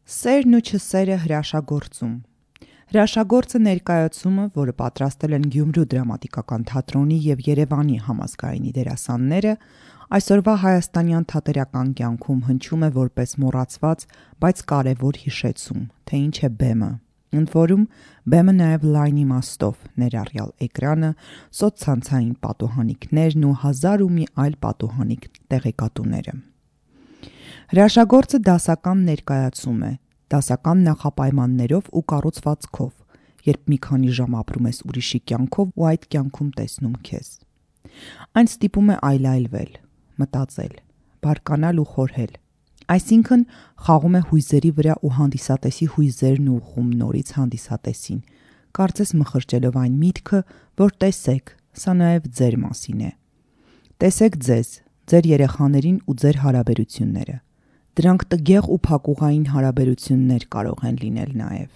Սերն ու չսերը հրաշագործում։ Հրաշագործը ներկայացումը, որը պատրաստել են Գյումրու դրամատիկական թատրոնի և Երևանի համազգայինի դերասանները, այսօրվա հայաստանյան թատերական կյանքում հնչում է որպես մոռացված, բայց կարևոր հիշեցում, թե ինչ է բեմը։ Ընդ որում, բեմը նաև լայն իմաստով, ներառյալ էկրանը, սոցցանցային պատուհանիկներն ու հազար ու մի այլ պատուհանիկ տեղեկատուները։ Հրաշագործը դասական ներկայացում է, դասական նախապայմաններով ու կառուցվածքով, երբ մի քանի ժամ ապրում ես ուրիշի կյանքով ու այդ կյանքում տեսնում քեզ։ Այն ստիպում է այլայլվել, մտածել, բարկանալ ու խորհել, այսինքն խաղում է հույզերի վրա ու հանդիսատեսի հույզերն ուղղում նորից հանդիսատեսին, կարծես մխրճելով այն միտքը, որ տեսեք, սա նաև ձեր մասին է։ Տեսեք ձեզ, ձեր երեխաներին ու ձեր հարաբերությունները։ Դրանք տգեղ ու փակուղային հարաբերություններ կարող են լինել նաև։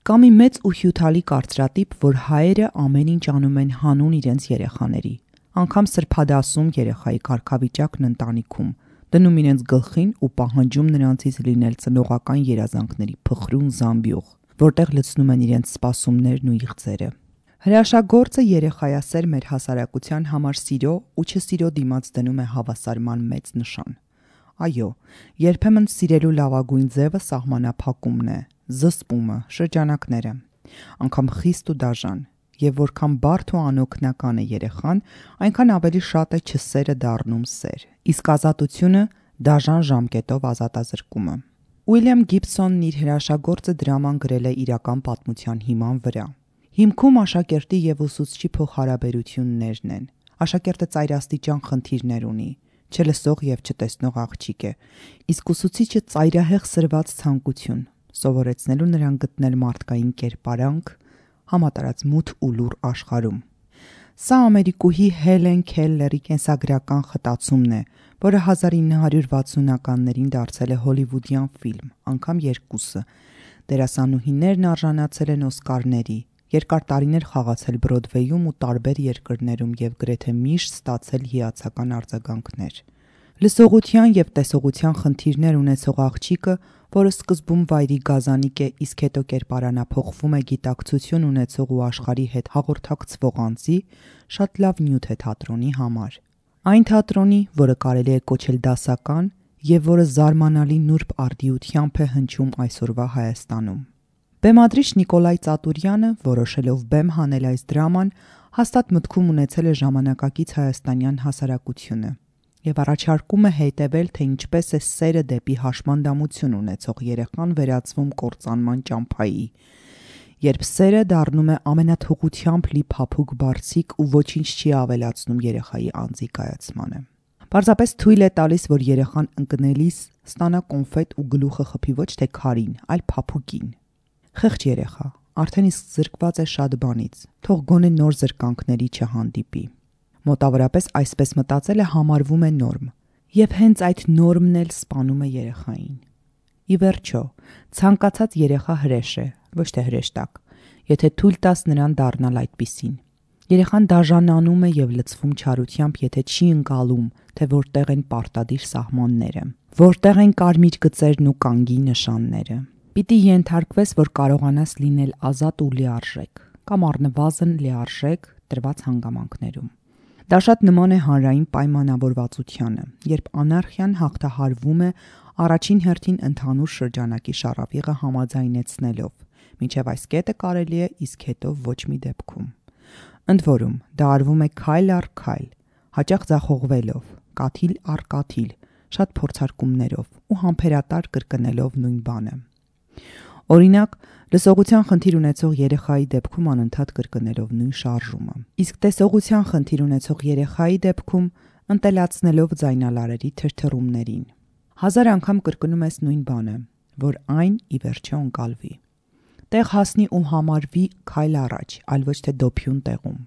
Կա մի մեծ ու հյութալի կարծրատիպ, որ հայերը ամեն ինչ անում են հանուն իրենց երեխաների, անգամ սրբադասում երեխայի կարգավիճակն ընտանիքում, դնում իրենց գլխին ու պահանջում նրանցից լինել ծնողական երազանքների փխրուն զամբյուղ, որտեղ լցնում են իրենց սպասումներն ու իղձերը։ Հրաշագործը երեխայասեր մեր հասարակության համար սիրո ու չսիրո դիմաց դնում է հավասարման մեծ նշան։ Այո, երբեմն սիրելու լավագույն ձևը սահմանափակումն է, զսպումը, շրջանակները, անգամ խիստ ու դաժան, և որքան բարդ ու անօգնական է երեխան, այնքան ավելի շատ է չսերը դառնում սեր, իսկ ազատությունը դաժան ժամկետով ազատազրկումը։ Ուիլյամ Գիբսոնն իր հրաշագործը դրաման գրել է իրական պատմության հիման վրա։ Հիմքում աշակերտի և ուսուցչի փոխհարաբերություններն են։ Աշակերտը ծայրաստիճան խնդիրներ ունի, չլսող և չտեսնող աղջիկ է, իսկ ուսուցիչը ծայրահեղ սրված ցանկություն, սովորեցնելու նրան գտնել մարդկային կերպարանք համատարած մութ ու լուռ աշխարհում։ Սա ամերիկուհի Հելեն Քելլերի կենսագրական խտացումն է, որը 1960-ականներին դարձել է հոլիվուդյան ֆիլմ, անգամ երկուսը։ Դերասանուհիներն արժանացել են Օսկարների, երկար տարիներ խաղացել Բրոդվեյում ու տարբեր երկրներում և գրեթե միշտ ստացել հիացական արձագանքներ։ Լսողության և տեսողության խնդիրներ ունեցող աղջիկը, որը սկզբում վայրի գազանիկ է, իսկ հետո կերպարանափոխվում է գիտակցություն ունեցող ու աշխարհի հետ հաղորդակցվող անձի, շատ լավ նյութ է թատրոնի համար։ Այն թատրոնի, որը կարելի է կոչել դասական և որը զարմանալի նուրբ արդիությամբ է հնչում այսօրվա Հայաստանում։ Բեմադրիչ Նիկոլայ Ծատուրյանը, որոշելով բեմ հանել այս դրաման, հաստատ մտքում ունեցել է ժամանակակից հայաստանյան հասարակությունը և առաջարկում է հետևել, թե ինչպես է սերը դեպի հաշմանդամություն ունեցող երեխան վերածվում կործանման ճամփայի, երբ սերը դառնում է ամենաթողությամբ լի փափուկ բարձիկ ու ոչինչ չի ավելացնում երեխայի անձի կայացմանը։ Պարզապես թույլ է տալիս, որ երեխան ընկնելիս ստանա կոնֆետ ու գլուխը խփի ոչ թե քարին, այլ փափուկին։ Խեղճ երեխա, արդեն իսկ զրկված է շատ բանից, թող գոնե նոր զրկանքների չհանդիպի։ Մոտավորապես այսպես մտածելը համարվում է նորմ, և հենց այդ նորմն էլ սպանում է երեխային։ Ի վերջո, ցանկացած երեխա հրեշ է, ոչ թե հրեշտակ, եթե թույլ տաս նրան դառնալ այդպիսին։ Երեխան դաժանանում է և լցվում չարությամբ, եթե չի ընկալում, թե որտեղ են պարտադիր սահմանները, որտեղ են կարմիր գծերն ու կանգի նշանները։ Պիտի ենթարկվես, որ կարողանաս լինել ազատ ու լիարժեք, կամ առնվազն լիարժեք տրված հանգամանքներում։ Դա շատ նման է հանրային պայմանավորվածությանը, երբ անարխիան հաղթահարվում է առաջին հերթին ընդհանուր շրջանակի շառավիղը համաձայնեցնելով, մինչև այս կետը կարելի է, իսկ հետո ոչ մի դեպքում։ Ընդ որում, դա արվում է քայլ առ քայլ, հաճախ ձախողվելով, կաթիլ առ կաթիլ, շատ փորձարկումներով ու համբերատար կրկնելով նույն բանը։ Օրինակ, լսողության խնդիր ունեցող երեխայի դեպքում անընդհատ կրկնելով նույն շարժումը, իսկ տեսողության խնդիր ունեցող երեխայի դեպքում ընտելացնելով ձայնալարերի թրթռումներին։ 1000 անգամ կրկնում ես նույն բանը, որ այն ի վերջո ընկալվի։ Տեղ հասնի ու համարվի քայլ առաջ, այլ ոչ թե դոփյուն տեղում։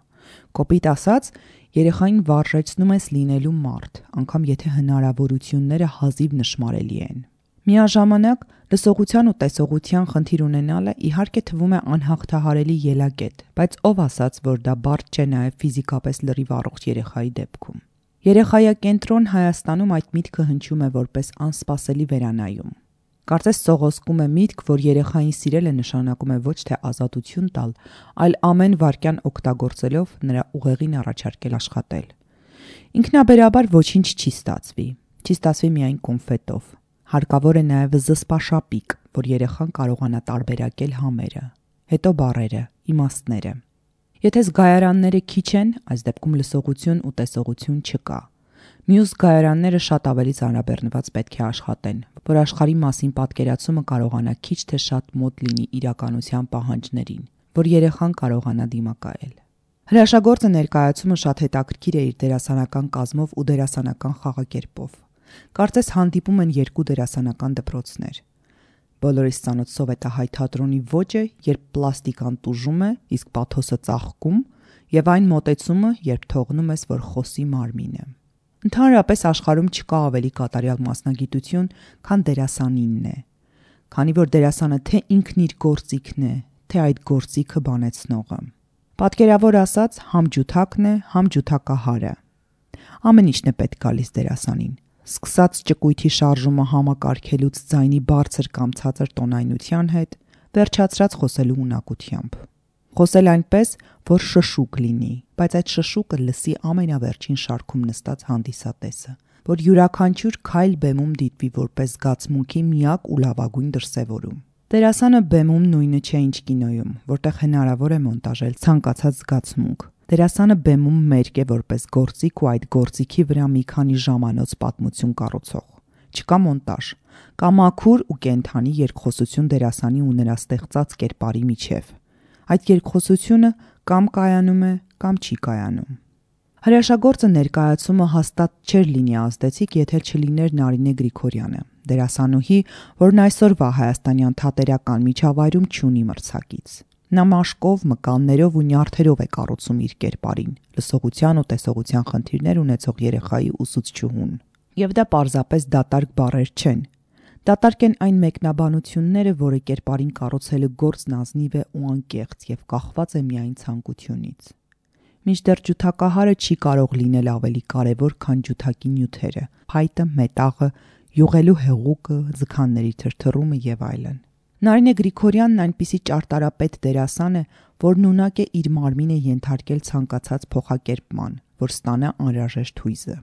Կոպիտ ասած, երեխային վարժեցնում ես լինելու մարդ, անգամ եթե հնարավորությունները հազիվ նշմարելի են։ Միաժամանակ լսողության ու տեսողության խնդիր ունենալը իհարկե թվում է անհաղթահարելի ելակետ, բայց ով ասաց, որ դա բարդ չէ նաև ֆիզիկապես լրիվ առողջ երեխայի դեպքում։ Երեխայակենտրոն Հայաստանում այդ միտքը հնչում է որպես անսպասելի վերանայում։ Կարծես սողոսկում է միտք, որ երեխային սիրելը նշանակում է ոչ թե ազատություն տալ, այլ ամեն վայրկյան օգտագործելով նրա ուղեղին առաջարկել աշխատել։ Ինքնաբերաբար ոչինչ չի ստացվի։ Չի ստացվի միայն կոնֆետով։ Հարկավոր է նաև զսպաշապիկ, որ երեխան կարողանա տարբերակել համերը, հետո բառերը, իմաստները։ Եթե զգայարանները քիչ են, այս դեպքում լսողություն ու տեսողություն չկա։ Մյուս զգայարանները շատ ավելի ծանրաբեռնված պետք է աշխատեն, որ աշխարհի մասին պատկերացումը կարողանա քիչ թե շատ մոտ լինի իրականության պահանջներին, որ երեխան կարողանա դիմակայել։ Հրաշագործը ներկայացումը շատ հետաքրքիր է իր դերասանական կազմով ու դերասանական խաղակերպով։ Կարծես հանդիպում են երկու դերասանական դպրոցներ։ Բոլորիս ծանոթ սովետահայ թատրոնի ոճը, երբ պլաստիկան տուժում է, իսկ պաթոսը ծաղկում, եւ այն մոտեցումը, երբ թողնում ես, որ խոսի մարմինը։ Ընդհանրապես աշխարհում չկա ավելի կատարյալ մասնագիտություն, քան դերասանինն է, քանի որ դերասանը թե ինքն իր գործիքն է, թե այդ գործիքը բանեցնողը։ Պատկերավոր ասած, համ ջութակն է, համ ջութակահարը։ Ամեն ինչն է պետք գալիս դերասանին։ Սկսած ճկույթի շարժումը համակարգելուց ձայնի բարձր կամ ցածր տոնայնության հետ, վերջացրած խոսելու ունակությամբ։ Խոսել այնպես, որ շշուկ լինի, բայց այդ շշուկը լսի ամենավերջին շարքում նստած հանդիսատեսը, որ յուրաքանչյուր քայլ բեմում դիտվի որպես զգացմունքի միակ ու լավագույն դրսևորում։ Դերասանը բեմում նույնը չէ, ինչ կինոյում, որտեղ հնարավոր է մոնտաժել ցանկացած զգացմունք։ Դերասանը բեմում մերկ է որպես գործիք ու այդ գործիքի վրա մի քանի ժամանոց պատմություն կառուցող։ Չկա մոնտաժ, կա մաքուր ու կենթանի երկխոսություն դերասանի ու նրա ստեղծած կերպարի միջև։ Այդ երկխոսությունը կամ կայանում է, կամ չի կայանում։ Հրաշագործը ներկայացումը հաստատ չէր լինի ազդեցիկ, եթե չլիներ Նարինե Գրիգորյանը, դերասանուհի, որն այսօրվա հայաստանյան թատերական միջավայրում չունի մրցակից։ Նա մաշկով, մկաններով ու նյարդերով է կառուցում իր կերպարին, լսողության ու տեսողության խնդիրներ ունեցող երեխայի ուսուցչուհուն։ Եվ դա պարզապես դատարկ բառեր չեն։ Դատարկ են այն մեկնաբանությունները, որը կերպարին կառուցելու գործն ազնիվ է ու անկեղծ եւ կախված է միայն ցանկությունից։ Մինչդեռ ջութակահարը չի կարող լինել ավելի կարևոր, քան ջութակի նյութերը՝ փայտը, մետաղը, յուղելու հեղուկը, ձգանների թրթռումը եւ այլն։ Նարինե Գրիգորյանն այնպիսի ճարտարապետ դերասան է, որն ունակ է իր մարմինը ենթարկել ցանկացած փոխակերպման, որ ստանա անհրաժեշտ հույզը։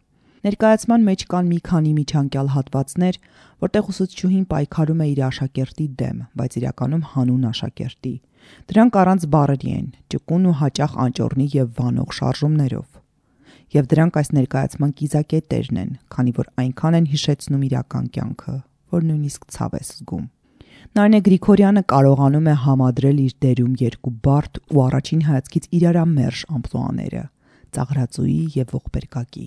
Ներկայացման մեջ կան մի քանի միջանկյալ հատվածներ, որտեղ ուսուցչուհին պայքարում է իր աշակերտի դեմ, բայց իրականում հանուն աշակերտի։ Դրանք առանց բառերի են, ճկուն ու հաճախ անճոռնի եւ վանող շարժումներով։ Եվ դրանք այս ներկայացման կիզակետերն են, քանի որ այնքան են հիշեցնում իրական կյանքը, որ նույնիսկ ցավ ես զգում։ Նարինե Գրիգորյանը կարողանում է համադրել իր դերում երկու բարդ ու առաջին հայացքից իրարամերժ ամպլուաները՝ ծաղրածուի եւ ողբերգակի։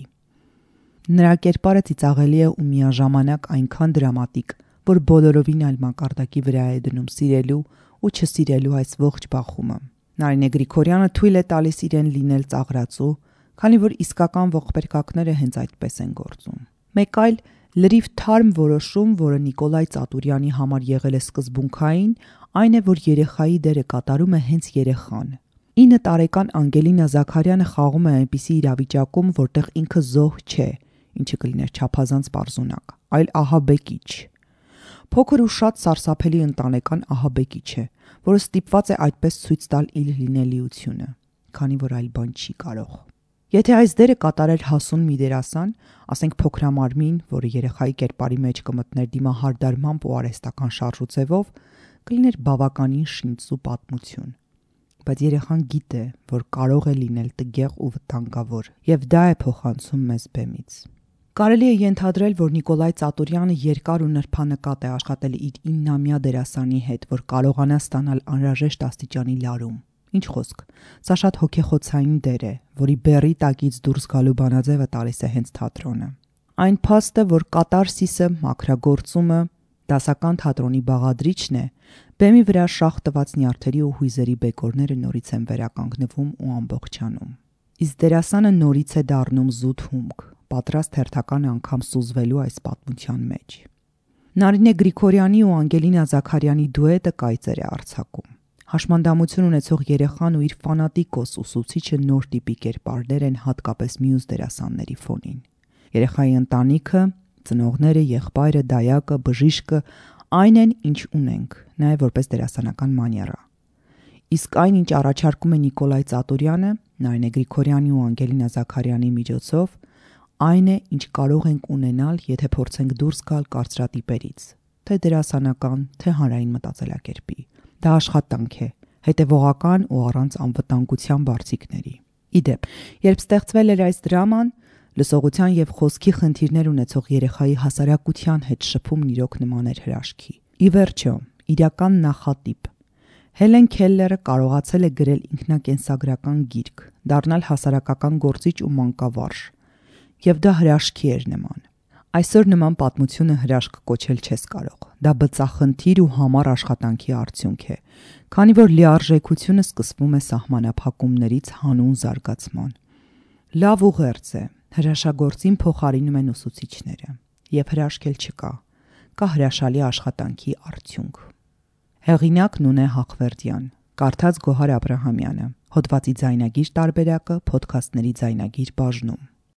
Նրա կերպարը ծիծաղելի է ու միաժամանակ այնքան դրամատիկ, որ բոլորովին այլ մակարդակի վրա է դնում սիրելու ու չսիրելու այս ողջ բախումը։ Նարինե Գրիգորյանը թույլ է տալիս իրեն լինել ծաղրածու, քանի որ իսկական ողբերգակները հենց այդպես են գործում։ Մեկ այլ լրիվ թարմ որոշում, որը Նիկոլայ Ծատուրյանի համար եղել է սկզբունքային, այն է, որ երեխայի դերը կատարում է հենց երեխան։ 9 տարեկան Անգելինա Զաքարյանը խաղում է այնպիսի իրավիճակում, որտեղ ինքը զոհ չէ, ինչը կլիներ չափազանց պարզունակ, այլ ահաբեկիչ։ Փոքր ու շատ սարսափելի ընտանեկան ահաբեկիչ է, որը ստիպված է այդպես ցույց տալ իր լինելիությունը, քանի որ այլ բան չի կարող։ Եթե այս դերը կատարեր հասուն մի դերասան, ասենք փոքրամարմին, որը երեխայի կերպարի մեջ կմտներ դիմահարդարմամբ ու արհեստական շարժուձևով, կլիներ բավականին շինծու պատմություն։ Բայց երեխան գիտե, որ կարող է լինել տգեղ ու վտանգավոր, եւ դա է փոխանցում մեզ բեմից։ Կարելի է ենթադրել, որ Նիկոլայ Ծատուրյանը երկար ու նրբանկատ է աշխատել իր 9-ամյա դերասանի հետ, որ կարողանա ստանալ անհրաժեշտ աստիճանի լարում։ Ինչ խոսք, սա շատ հոգեխոցային դեր է, որի բեռի տակից դուրս գալու բանաձևը տալիս է հենց թատրոնը։ Այն փաստը, որ կատարսիսը, մաքրագործումը, դասական թատրոնի բաղադրիչն է, բեմի վրա շաղ տված նյարդերի ու հույզերի բեկորները նորից են վերականգնվում ու ամբողջանում։ Իսկ դերասանը նորից է դառնում զուտ հումք, պատրաստ հերթական անգամ սուզվելու այս պատմության մեջ։ Նարինե Գրիգորյանի ու Անգելինա Զաքարյանի դուետը կայծեր է արձակում։ Հաշմանդամություն ունեցող երեխան ու իր ֆանատիկոս ուսուցիչը նոր տիպի կերպարներ են հատկապես մյուս դերասանների ֆոնին։ Երեխայի ընտանիքը, ծնողները, եղբայրը, դայակը, բժիշկը Այն են, ինչ ունենք, նաև որպես դերասանական մանիերա։ Իսկ այն, ինչ առաջարկում է Նիկոլայ Ծատուրյանը, Նարինե Գրիգորյանի ու Անգելինա Զաքարյանի միջոցով, այն է, ինչ կարող ենք ունենալ, եթե փորձենք դուրս գալ կարծրատիպերից, թե դերասանական, թե հանրային մտածելակերպի։ Դա աշխատանք է, հետևողական ու առանց անվտանգության բարձիկների։ Իդեպ, երբ ստեղծվել էր այս դրաման, լսողության եւ խոսքի խնդիրներ ունեցող երեխայի հասարակության հետ շփումն իրոք նման էր հրաշքի։ Ի վերջո, իրական նախատիպ Հելեն Քելլերը կարողացել է գրել ինքնակենսագրական գիրք, դառնալ հասարակական գործիչ ու մանկավարժ, եւ դա հրաշքի էր նման։ Այսօր նման պատմությունը հրաշք կոչել չես կարող։ Դա բծախնդիր ու համառ աշխատանքի արդյունք է, քանի որ լիարժեքությունը սկսվում է սահմանափակումներից հանուն զարգացման։ Լավ ուղերձ է, հրաշագործին փոխարինում են ուսուցիչները, եւ հրաշք էլ չկա, կա հրաշալի աշխատանքի արդյունք։ Հեղինակ Նունե Հախվերդյան, կարդաց Գոհար Աբրահամյանը, հոդվածի ձայնագիր տարբերակը Փոդքասթների ձայնագիր բաժնում։